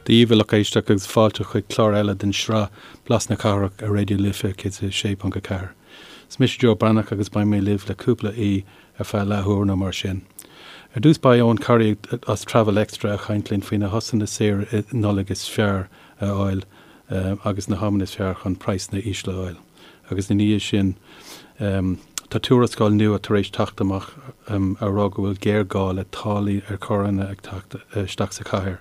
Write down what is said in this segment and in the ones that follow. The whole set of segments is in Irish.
Dia daoibh a lucht éisteachta agus fáilte chuig clár eile den sraith Blas na Cathrach ar Raidió Life 106.4. Is mise Joe Breathnach agus beidh mé libh le cúpla aoi ar feadh leathuair nó mar sin. Ar dtús beidh Eoin Corry as Travel Extra ag caint linn faoi na shosanna saoire Nollag is fearr a fháil agus na hamanna is fearr chun praghsanna ísle a fháil. Agus ina dhiaidh sin tá tuarascáil nua tar éis teacht amach á rá go bhfuil géarghá le táillí ar charranna ag teacht isteach sa chathair.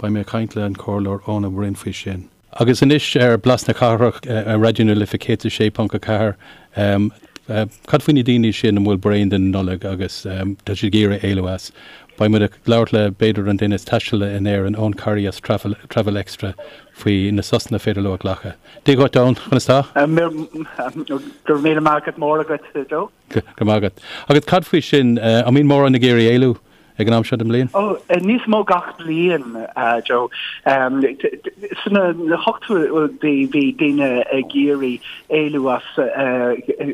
Beidh mé ag caint le an Comhairleoir Eoin Ó Broin faoi sin. Agus anois ar Blas na Cathrach ar Raidió na Life 106.4, cad faoi na daoine sin a bhfuil bréan den Nollaig agus tá siad ag iarraidh éalú as? Beidh muid ag labhairt le b'fhéidir an duine is taistealaí in Éirinn, Eoin Corry as Travel Extra faoi na sosanna féidir leo a ghlacadh. Dia dhuit Eoin, conas tá? Go raibh míle maith agat mór agat, Joe. Go raibh maith agat. Agus cad faoi sin, an mbíonn mórán ag iarraidh éalú ag an am seo den mbliain? Ó, níos mó gach bliain, Joe. Sna hochtóidí bhí daoine ag iarraidh éalú as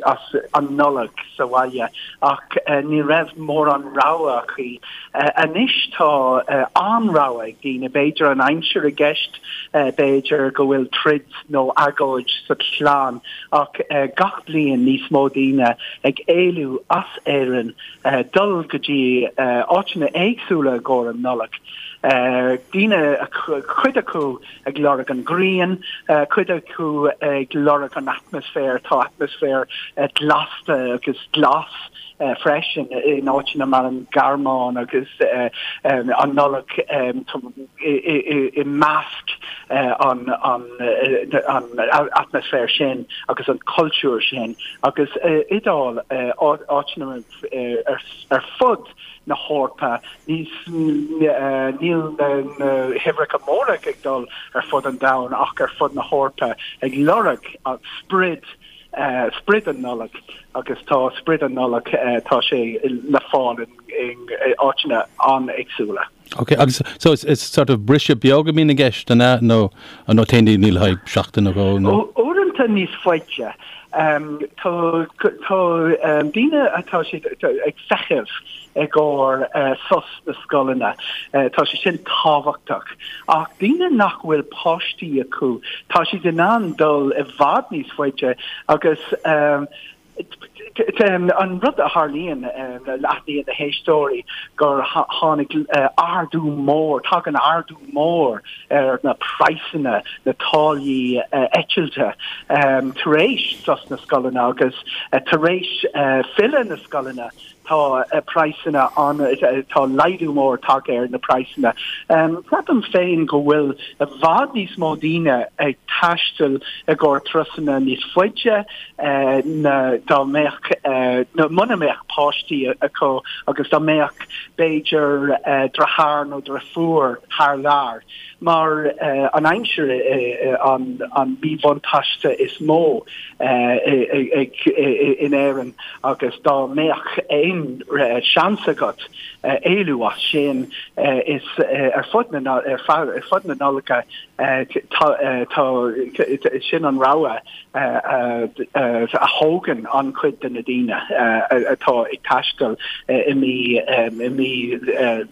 as an Nollaig sa bhaile ach ní raibh mórán rogha acu. Anois tá an-rogha ag daoine, b'fhéidir an aimsir i gceist, b'fhéidir go bhfuil troid nó agóid sa chlann ach gach bliain níos mó daoine ag éalú as Éirinn dul go dtí áiteanna éagsúla i gcomhair an Nollaig. Daoine, cuid acu ag lorg an ghrian, cuid acu ag lorg an atmaisféar, tá atmaisféar blasta agus glas freisin in áiteanna mar an Ghearmáin agus an Nollaig i measc an atmaisféar sin agus an cultúr sin agus Iodáil, áiteanna ar fud na hEorpa, níl na huimhreacha móra ag dul ar fud an domhain ach ar fud na hEorpa ag lorg sprid sprid an Nollaig agus tá sprid an Nollaig, tá sé le fáil in áiteanna an-éagsúla. Ok, agus so is is sort of briseadh beag a bhíonn i gceist, an ea, nó nó téann daoine le haghaidh seachtain nó dhó nó? Uaireanta níos faide. Tá tá daoine atá siad ag feitheamh i gcomhair sos na scoileanna. Tá sé sin tábhachtach. Ach daoine nach bhfuil páistí acu, tá siad in ann dul i bhfad níos faide agus an rud a tharlaíonn, aithníonn na héisteoirí gur tháinig ardú mór, tagann ardú mór ar na praghsanna, na táillí eitilte tar éis sos na scoileanna agus tar éis filleadh na scoileanna. Tá praghsanna an, tá laghdú mór tagtha ar na praghsanna. Ceapaim féin go bhfuil i bhfad níos mó daoine ag taisteal i gcomhair turasanna níos faide ná dá mbeadh, nó muna mbeadh páistí acu agus dá mbeadh b'fhéidir deartháir nó deirfiúr thar lear. Mar an aimsir an míbhuntáiste is mó in Éirinn agus dá mbeadh aon seans agat éalú as sin is ar fud na ar fud na Nollag tá sin an rogha a thógann an-chuid de na daoine atá ag taisteal i mí i mí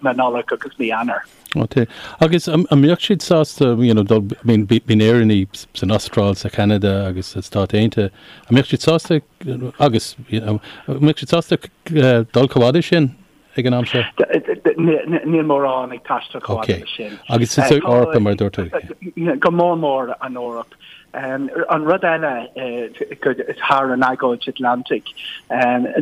na Nollag agus mí Eanáir. Ok. Agus an mbeadh siad sásta, you know, dul, I mean, bíonn Éireannaigh san Astráil, sa Cheanada agus sa Stáit Aontaithe, an mbeadh siad sásta agus, you know, an mbeadh siad sásta dul chomh fhada sin ag an am seo? Níl mórán ag taisteal chomh fada leis sin. Ok. Agus sa Eoraip, mar a dúirt tú. Go mór mór an Eoraip. An rud eile thar an Aigéad Atlantaigh,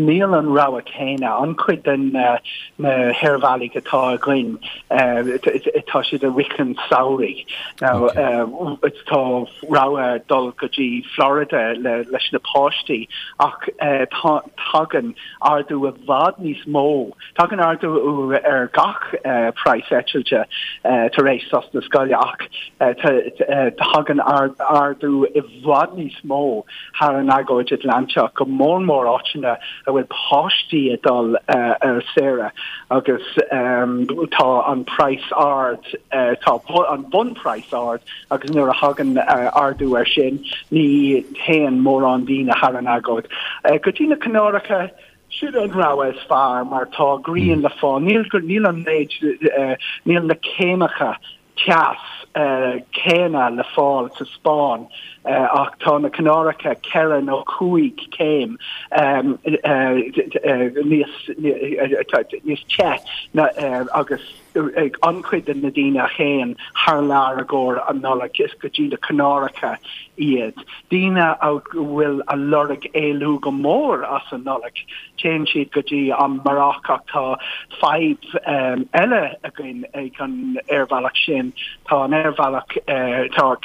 níl an rogha céanna. An-chuid de na haerbhealaigh atá againn, tá siad i rith an samhraidh. Now, tá rogha dul go dtí Florida leis na páistí ach tagann ardú i bhfad níos mó Tagann ardú ar gach praghas eitilte tar éis sos na scoile ach tagann ardú i bhfad níos mó thar an Aigéad Atlantach, go mór mór áiteanna a bhfuil páistí ag dul ar saoire agus tá an praghas ard, tá an bunphraghas ard agus nuair a thagann ardú air sin ní théann mórán daoine thar an Aigéad. Go dtí na Canáracha, Sin an rogha is fearr mar tá grian le fáil. Níl níl an méid, níl na céimeacha teas. céanna le fáil sa Spáinn ach tá na Canáracha 4 nó 5 céim níos níos te agus an-chuid de na daoine a théann thar lear i gcomhair an Nollaig, is go dtí na Canáracha iad. Daoine a bhfuil a lorg éalú go mór as an Nollaig, téann siad go dtí an Maróc ach tá fadhb eile againn ag an aerbhealach sin, tá an aerbhealach, tá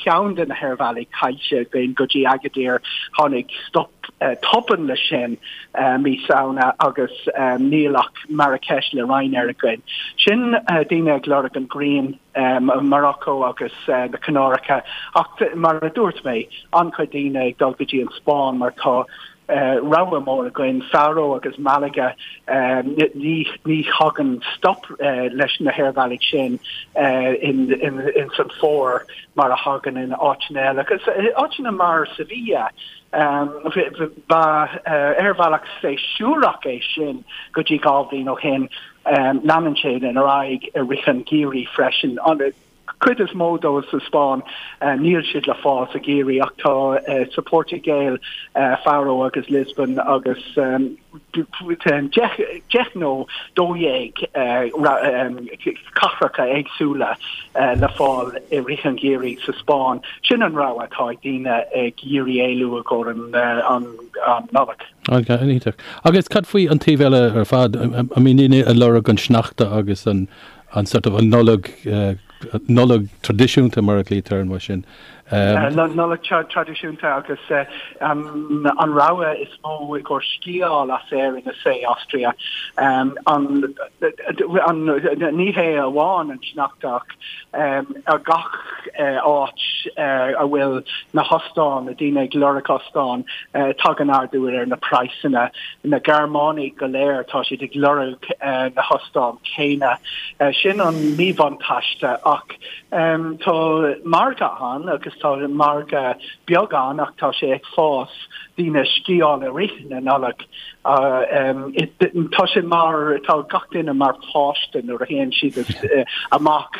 ceann de na haerbhealaí caillte againn go dtí Agadir, tháinig stop tobann leis sin mí Samhna agus níl ach Marrakesh le Ryanair againn. Sin daoine ag lorg an ghrian, Morocco agus na Canáracha ach mar a dúirt mé, an-chuid daoine ag dul go dtí an Spáinn mar tá rogha mór againn, Faro agus Malaga, ní ní thagann stop leis na haerbhealaigh sin in san fómhar mar a thagann in áiteanna eile agus áiteanna mar Sevilla Ba aerbhealach séasúrach é sin go dtí 2 bhliain ó shin. Leanann sé ar aghaidh i rith an gheimhridh freisin. An chuid is mó dóibh sa Spáinn, níl siad le fáil sa gheimhreadh ach tá sa Phortaingéil, Faro agus Lisbon agus 10 nó 12 cathracha éagsúla le fáil i rith an gheimhridh sa Spáinn. Sin an rogha atá ag daoine ag iarraidh éalú i gcomhair an Nollaig. Iontach. Agus cad faoi an taobh eile ar fad? I mean daoine ag lorg an sneachta agus an sort of an Nollaig, Nollaig traidisiúnta mar a ghlaoitear an uair sin. Nollaig traidisiúnta agus an rogha is mó i gcomhair sciáil as Éirinn is é Austria. An ní hé amháin an sneachta ach ar gach áit a bhfuil na hostáin, na daoine ag lorg ostáin, tagann ardú ar na praghsanna. Na Gearmánaigh go léir tá siad ag lorg na hostáin céanna. Sin an míbhuntáiste ach Tá margadh ann agus tá margadh beag ann ach tá sé ag fás, daoine ag sciáil i rith na Nollag. Tá sé mar, tá gach duine mar pháiste nuair a théann siad amach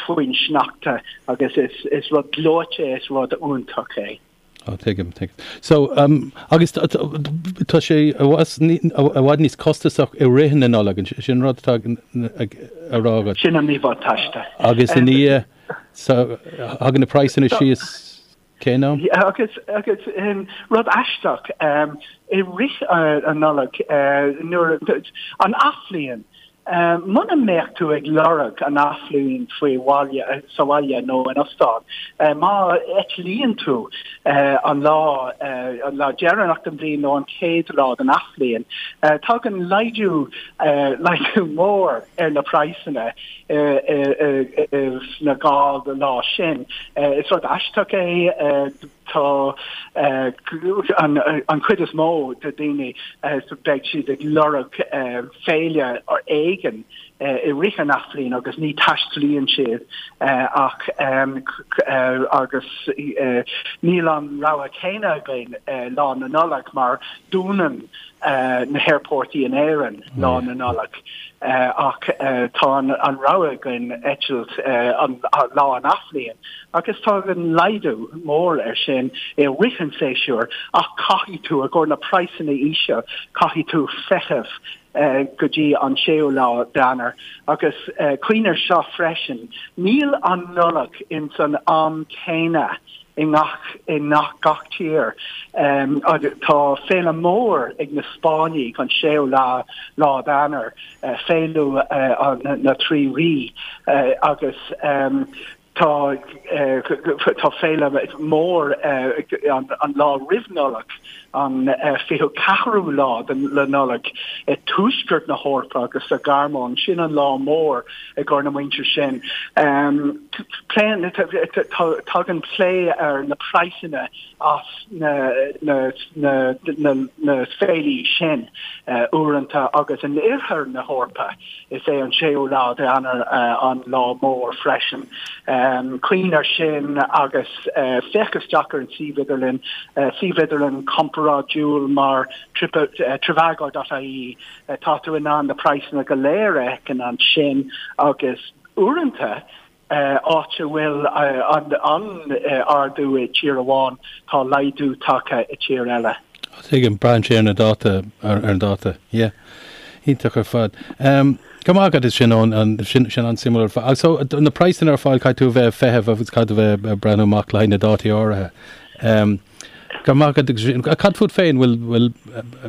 faoin sneachta agus is rud gleoite, is rud iontach é. Á, tuigim, tuigim. So, um, agus tá sé i bhfad níos costasach i rith na Nollag, sin rud atá á rá agat. Sin an míbhuntáiste. Agus i ndiaidh, so, thagann na praghsanna síos cén am? Agus, agus, rud aisteach, i rith an Nollag, nuair, an athbhliain, Muna mbeadh tú ag lorg an athbhliain faoi bhaile, sa bhaile nó in ostán, má eitlíonn tú an lá, an lá deireanach den bhliain nó an chéad lá den athbhliain, tagann laghdú, laghdú mór ar na praghsanna sna 2 lá sin. Is rud aisteach é. Tá an chuid is mó de daoine, beidh siad ag lorg féile éigin i rith an athbhliain agus ní taistealaíonn siad ach agus níl an rogha céanna againn Lá na Nollag mar dúnann na haerphortaí in Éirinn Lá na Nollag ach tá an rogha againn eitilt an lá an athbhliain. Agus tagann laghdú mór air sin i rith an tséasúir ach caithfidh tú, i gcomhair na praghsanna íseal, caithfidh tú feitheamh go dtí an séú lá d'Eanáir. Agus cuimhnigh air seo freisin, níl an Nollaig ins an am céanna i ngach i ngach tír. Tá féile mór ag na Spáinnigh an séú lá lá d'Eanáir, féile na Trí Rí agus Tá tá féile mór an lá roimh Nollaig, an 24ú lá de Nollaig, i tuaisceart na hEorpa agus sa Ghearmáin. Sin an lá mór i gcomhair na muintir sin. Pléann tagann plé ar na praghsanna as na na na na féilí sin uaireanta agus in oirthear na hEorpa. Is é an séú lá d'Eanáir an lá mór freisin. Cuimhnigh air sin agus féach isteach ar an suíomh idirlín, suíomh idirlín comparáidiúil mar trivago.ie. Tá tú in ann na praghsanna go léir a fheiceáil ansin agus uaireanta. Áit a bhfuil an ardú i tír amháin, tá laghdú tagtha i tír eile. Tuigim, braitheann sé ar na dáta, ar an dáta. Yeah. Iontach ar fad. Go raibh maith agat as sin, Eoin, sin sin an-suimiúil ar fad. So, na praghsanna ar fáil, caithfidh tú a bheith ag feitheamh agus caithfidh tú a bheith ag breathnú amach le haghaidh na dátaí áirithe. Go raibh maith agat. Cad fút féin, bhfuil,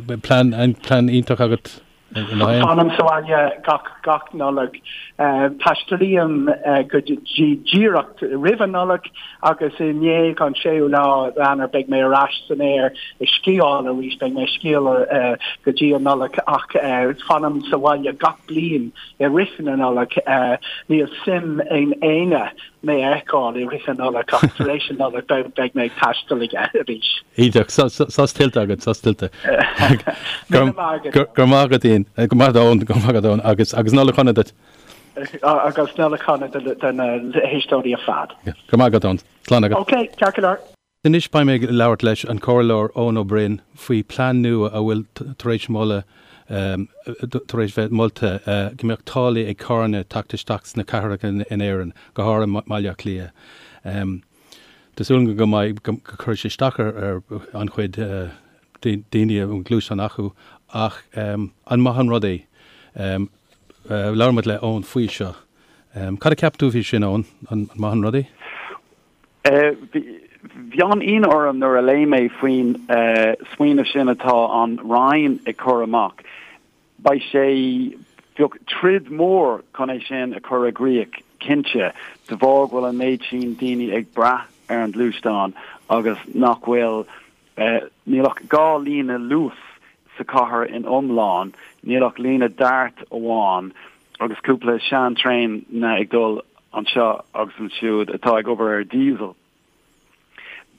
bhfuil plean, plean iontach agat? Fanaim sa bhaile gach gach Nollaig. Taistealaím go dtí díreach roimh an Nollaig agus i ndiaidh an séú lá Eanáir beidh mé ar ais san aer ag sciáil arís. Beidh mé ag sciáil go dtí an Nollaig ach fanaim sa bhaile gach bliain i rith na Nollag. Níl suim in éinne mé a fheiceáil i rith na Nollag ach tar éis na Nollag beidh mé ag taisteal arís. Iontach. Sos tuillte agat, sos tuillte. Go raibh maith agat Ian, go maith Eoin, go maith agat Eoin agus agus Nollaig shona duit. Agus Nollaig shona do na héisteoirí ar fad. Go raibh maith agat Eoin. Slán agat. Ok, ceart go leor. Anois beidh mé ag labhairt leis an Comhairleoir Eoin Ó Broin faoi plean nua a bhfuil tar éis moladh tar éis bheith molta go mbeadh táillí ag carranna teacht isteach sna cathracha in Éirinn, go háirithe mBaile Átha Cliath. Tá súil agam go mbeidh go gcuirfidh sé isteach ar an-chuid daoine a bhfuil gluaisteán acu ach an maith an rud é? Labhair muid le Eoin faoi seo. Cad a cheap tú faoi sin Eoin? An maith an rud é? Bhí an-ionadh orm nuair a léigh mé faoin smaoineamh sin atá an Roinn ag cur amach. Beidh sé, bheadh troid mór chun é sin a chur i gcrích, cinnte, de bharr go bhfuil an méid sin daoine ag brath ar an gluaisteán agus nach bhfuil, níl ach 2 líne Luas sa chathair in iomlán, níl ach líne DART amháin agus cúpla sean-traein ag dul anseo agus ansiúd atá ag obair ar diesel.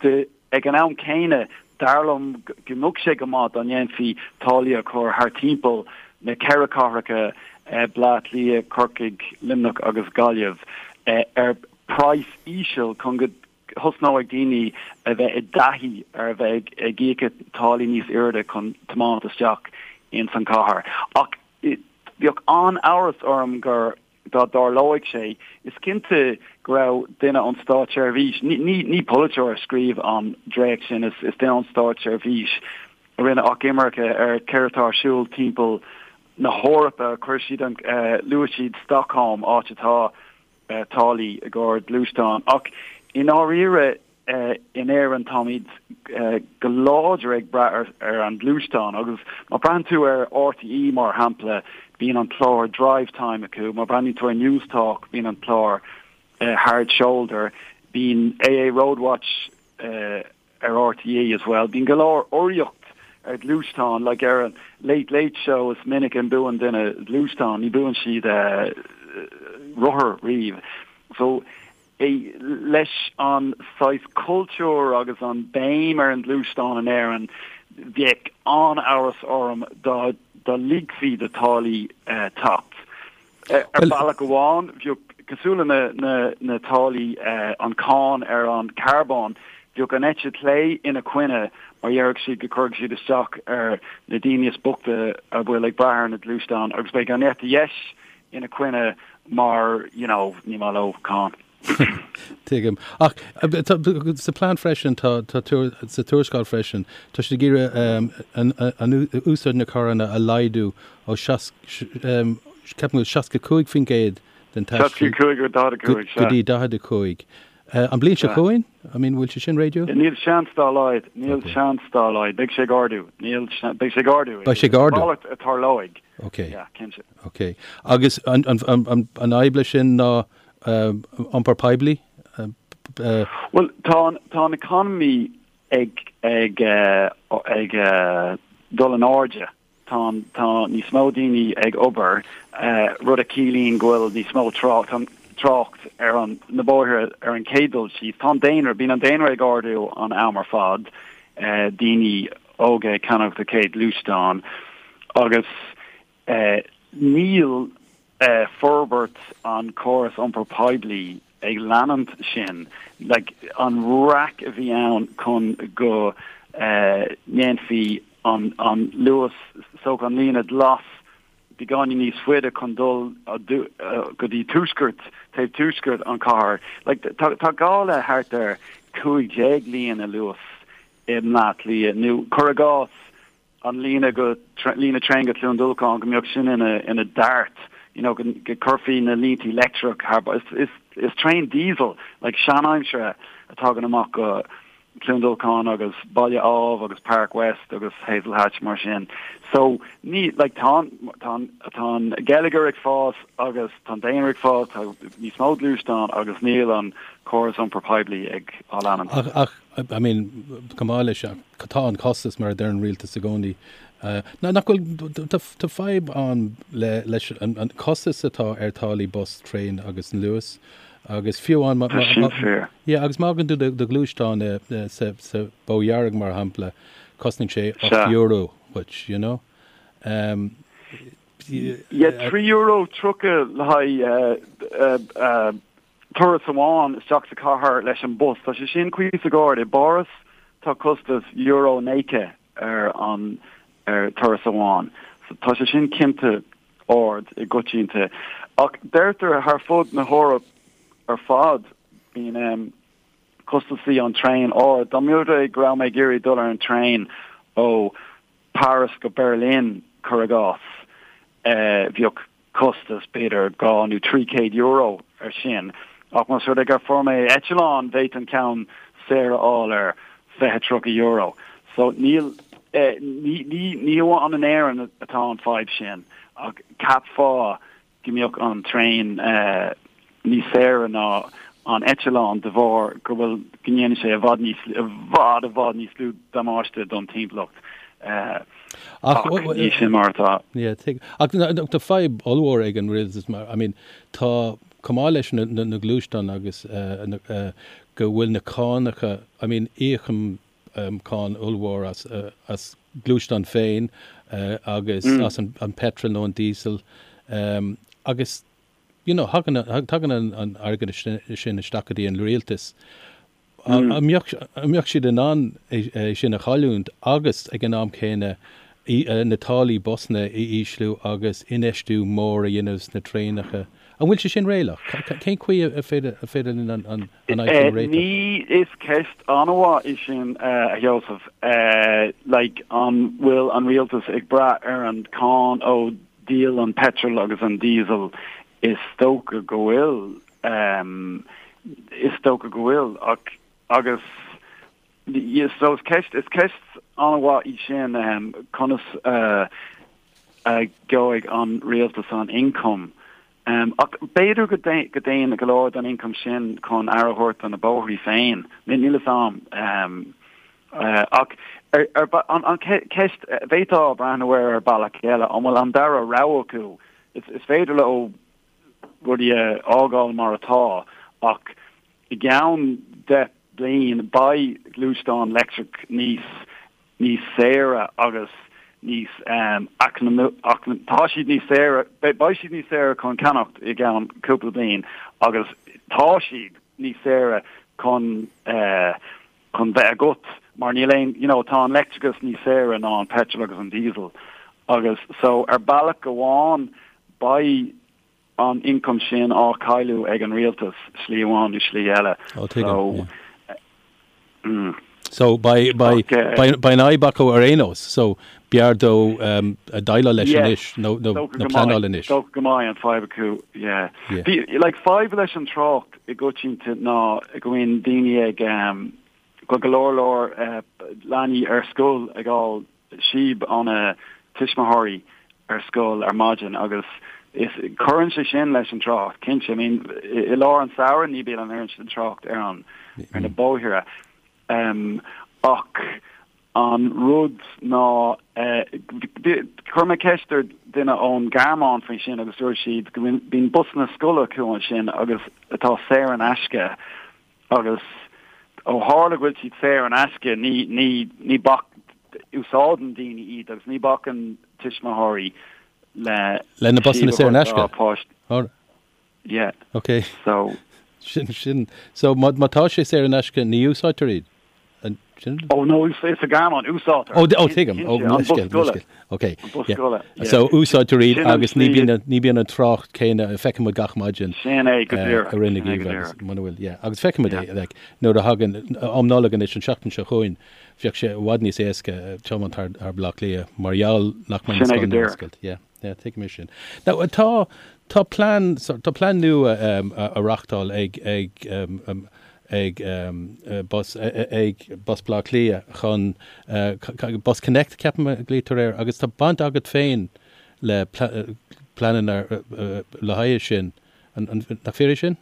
De, ag an am céanna, dar liom go mbeadh sé go maith dá ndéanfaí táillí a chur thar timpeall na ceithre cathracha, Baile Átha Cliath, Corcaigh, Luimneach agus Gaillimh, ar praghas íseal chun go thosnóidh daoine a bheith i dtaithí ar a bheith ag íoc táillí níos airde chun tiomáint isteach ins an chathair. Ach bheadh an-amhras orm gur dá dtarlóidh sé, is cinnte go raibh duine ón státseirbhís, ní ní polaiteoir a scríobh an dréacht sin, is duine ón státseirbhís a rinne achoimre ar céard atá ar siúl timpeall na hEorpa, chuir siad an, luaigh siad Stockholm, áit atá táillí i gcomhair gluaisteán. Ach i ndáiríre in Éirinn táimid go láidir ag brath ar an gluaisteán agus má breathnaíonn tú ar RTÉ mar shampla bíonn an clár Drivetime acu, má breathnaíonn tú ar Newstalk bíonn an clár Hard Shoulder, bíonn AA Roadwatch ar RTÉ as well. Bíonn go leor urraíocht ar ghluaisteáin, like ar an Late Late Show is minic a mbuann duine gluaisteán, ní buann siad rothar riamh. So leis an saghas cultúr agus an béim ar an gluaisteán in Éirinn, bheadh an-amhras orm dá dá ligfí do táillí teacht. Ar bhealach amháin, bheadh, cosúil le na na táillí, an cáin ar an carbón, bheadh an eite chlé ina coinne mar déarfadh siad go cuirfidh siad isteach ar na daoine is boichte a bhfuil ag brath ar na gluaisteáin agus beidh an eite dheis ina coinne mar, you know, ní maith leo cáin. Tuigim. Ach sa plean freisin, tá, tá, sa tuarascáil freisin, tá siad ag iarraidh an úsáid na carranna a laghdú ó ceapaim go 65% den taisteal 65 go 45, go dtí 45. An bliain seo chugainn? I mean, bhfuil sé sin réadúil? Níl seans dá laghad, níl seans dá laghad. Beidh sé ag ardú. Níl, beidh sé ag ardú. Beidh sé ag ardú. Mhalairt a tarlóidh. Ok. Yeah, cinnte. Ok. Agus an, an, an, an, an fhadhb leis sin ná iompar poiblí? Bhuel, tá an, tá an economy ag, ag, ag dul in airde. Tá an, tá níos mó daoine ag obair, rud a chiallaíonn go bhfuil níos mó trácht, trácht ar an, na bóithre ar an chéad dul síos. Tá an daonra, bíonn an daonra ag ardú an am ar fad, daoine óga ag ceannacht a chéad gluaisteán agus Níl forbairt an córas iompair poiblí ag leanúint sin. Like, an raic a bhí ann chun go ndéanfaí an, an Luas, so an líne glas. beagáinín níos faide chun dul go dtí tuaisceart, taobh tuaisceart an chathair. Like, tá, tá gá le thart ar 15 líne Luas i mBleá Cliath, nó cuir i gcás an líne go, líne traein go Cluain Dolcáin, go mbeadh sin ina, ina dart, you know, go, go gcuirfí na línti leictreach thar, is, is, is traein diesel, like seanaimseartha a tagann amach go, Cluain Dolcáin agus Baile Ádhaimh agus Park West agus Hazelhatch mar sin. So ní, like tá an, tá an, tá an geilleagar ag fás agus tá an daonra ag fás, tá níos mó gluaisteán agus níl an córas iompair poiblí ag á leanúint. Ach, ach, I mean, chomh maith leis, tá an costas mar a deir an rialtas i gcónaí. Ná, nach bhfuil, tá, tá fadhb ann le, leis an, an costas atá ar táillí bus, traein agus an Luas. Agus fiú amháin má, Tá sin fíor. yeah, agus má fhágann tú do, do ghluaisteán i, sa, sa Bó Dhearg, mar shampla, cosnaíonn sé Sea. €8 dhuit, you know? Um, Yeah, €3.30 le haghaidh eh, eh, turas amháin isteach sa chathair leis an bus. Tá sé sin cuíosach ard. I bPáras tá costas euro 90 ar an ar turas amháin. So tá sé sin cinnte ard i gcoitianta. Ach deirtear thar fud na hEorpa ar fad bíonn costasaí an traein ard. Dá mba rud é go raibh mé ag iarraidh dul ar an traein ó Paris go Berlin, cuir i gcás, bheadh costas b'fhéidir €200 nó €300 ar sin. Ach más rud é gur fuair mé eitleán, bhféadfainn ceann saor a fháil ar €20, €30. So níl, ní, ní, ní amháin in Éirinn atá an fadhb sin, ach cheapfá go mbeadh an traein níos saoire ná an eitleán de bharr go bhfuil, go ndéanann sé i bhfad níos, i bhfad, i bhfad níos lú damáiste don timpeallacht. Ach ní sin mar atá. Yeah, tuigim. Ach tá fadhb ollmhór ag an rialtas mar, I mean, tá, chomh maith leis na, na, na gluaisteáin agus na, go bhfuil na cánacha, I mean, íocaim cáin ollmhór as, as gluaisteán féin agus as an, an petrol nó an diesel agus, you know, thagann, tagann an, an airgead sin isteach go dtí an rialtas. An mbeadh siad in ann é sin a chailliúint agus ag an am céanna na táillí busanna a ísliú agus infheistiú mór a dhéanamh sna traenacha? An bhfuil sé sin réalaíoch? Cén chaoi a féidir linn an fhadhb sin a réiteach? Ní, is ceist an-mhaith í sin, a Sheosaimh. Like, an bhfuil an rialtas ag brath ar an cáin ó dhíol an petrol agus an diesel? Is dócha go bhfuil. Is dócha go bhfuil, ach agus so is ceist is ceist an-mhaith í sin conas a gheobhaidh an rialtas an ioncam. Ach b'fhéidir go dtéann go leor den ioncam sin chun aire a thabhairt do na bóithrí féin. Níl fhios a'm. Ach an ceist, bhféadfá breathnú air ar bealach eile, an bhfuil an dara rogha acu? Is féidir leo rudaí a fhágáil mar atá ach i gceann 10 bliain beidh gluaisteáin leictreach níos níos saoire agus níos tá siad níos saoire beidh siad níos saoire chun ceannacht i gceann cúpla bliain agus tá siad níos saoire chun chun bheith agat mar níl aon you know tá an leictreachas níos saoire ná an petrol agus an diesel agus so ar bealach amháin beidh an ioncam sin á chailleadh ag an rialtas slí amháin nó slí eile. Oh, tuigim, so yeah. mm. So beidh beidh beidh beidh an fhadhb acu ar aon nós so b'fhearr dó um, déileáil leis Yeah. anois nó nó Dócha nó go pleanáil mbeidh anois. dócha go mbeidh an fadhb acu yeah. Yeah. Bhí like fadhb leis an trácht i gcoitianta ná go mbíonn daoine ag um, go go leor leor uh, leanaí ar scoil ag fháil síob óna tuismitheoirí ar scoil ar maidin agus is cuireann sé sin leis an trácht cinnte. I mean i, i lár an samhradh ní bíonn an oiread sin trácht ar an ar na bóithre. Um, ach An rud ná, chuir mé ceist ar duine ón Ghearmáin faoi sin agus dúirt siad go mbíonn busanna scoile acu ansin agus atá saor in aisce agus ó tharla go bhfuil siad saor in aisce ní, ní, ní bac, úsáideann daoine iad agus ní bacann tuismitheoirí le Le na busanna síob a saor in thabhairt dá aisce? páistí. Alright. Yeah. Ok. So. Sin, sin. So má, má tá sé saor in aisce ní úsáidtear iad? Ó no, is sa Ghearmáin, úsáidtear. Ó, ó tuigim, ó, leithscéal, leithscéal. Ok. An bus scoile. So úsáidtear iad agus ní bhíonn, ní bhíonn an trácht céanna, feicfidh muid gach maidin. Sin é go díreach. I rith na geimhridh agus muna bhfuil, yeah. Agus feicfidh muid é, like, nuair a thagann am Nollag anois an seachtain seo chugainn, bheadh sé i bhfad níos éasca tiomáint thar, thar Baile Átha Cliath mar gheall nach mbeidh na scoileanna ar oscailt. Yeah, yeah, tuigim é sin. Now, tá, tá plean, tá plean nua á reachtáil ag, ag, ag Bus ag Bus Baile Átha Cliath chun Bus Connect ceapaim a ghlaoitear air agus tá baint agat féin le pleananna le haghaidh sin. Nach fíor é sin?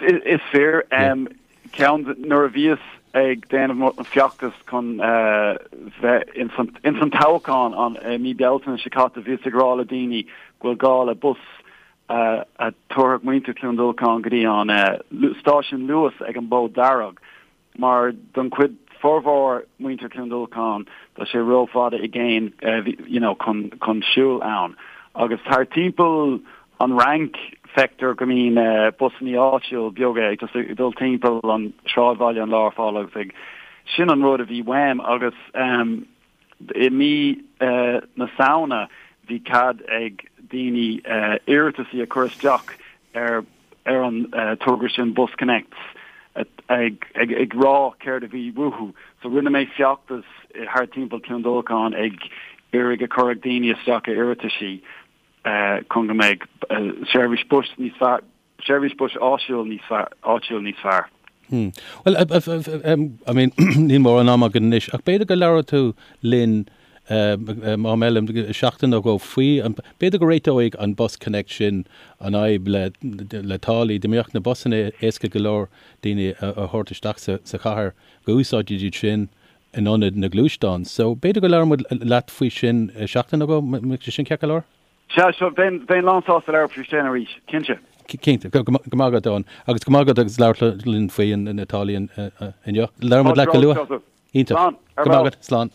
Is fíor. Ceann nuair a bhíos ag déanamh an feachtas chun bheith ins an toghchán an mí Bealtaine seo caite bhíos ag rá le daoine go bhfuil gá le bus a thabharfadh muintir Chluain Dolcáin go dtí an stáisiún Luas ag an Bhód Dearg, mar don chuid formhór muintir Chluain Dolcáin tá sé rófhada i gcéin you know chun chun siúl ann. Agus thar timpeall an Fhrainc feictear go mbíonn busannaí áitiúil beaga ag just ag dul timpeall an sráidbhaile an lá ar fad agus ag sin an rud a bhí uaim agus I mí na Samhna bhí cead ag daoine iarrataisí a chur isteach ar ar an togra sin Bus Connect ag ag rá céard a bhí uathu. So rinne mé feachtas thar timpeall Cluain Dolcáin ag iarraidh a chur ag daoine isteach a iarrataisí chun go mbeidh seirbhís bus níos fearr Seirbhís bus áitiúil níos fearr, áitiúil níos fearr. Hmm. Bhuel, I mean, níl mórán ama againn anois, ach b'fhéidir go labhróidh tú linn am eile, seachtain nó dhó faoi, b'fhéidir go réiteoidh an Bus Connect sin an fhadhb le, le táillí, dá mbeadh na busanna éasca go leor daoine a thabhairt isteach sa, sa chathair, go úsáidfidís sin in ionad na gluaisteán. So, b'fhéidir go labhróidh muid leat faoi sin seachtain nó dhó, mbeadh sé sin ceart go leor? Sea, sure, bheinn, bheinn lán-sásta labhairt faoi sin arís, cinnte. Cinnte, go maith agat, Eoin. Agus go maith agat agus labhairt linn faoi na táillí inniu. Labhróidh muid leat go luath. Iontach. Slán. Go maith agat, slán.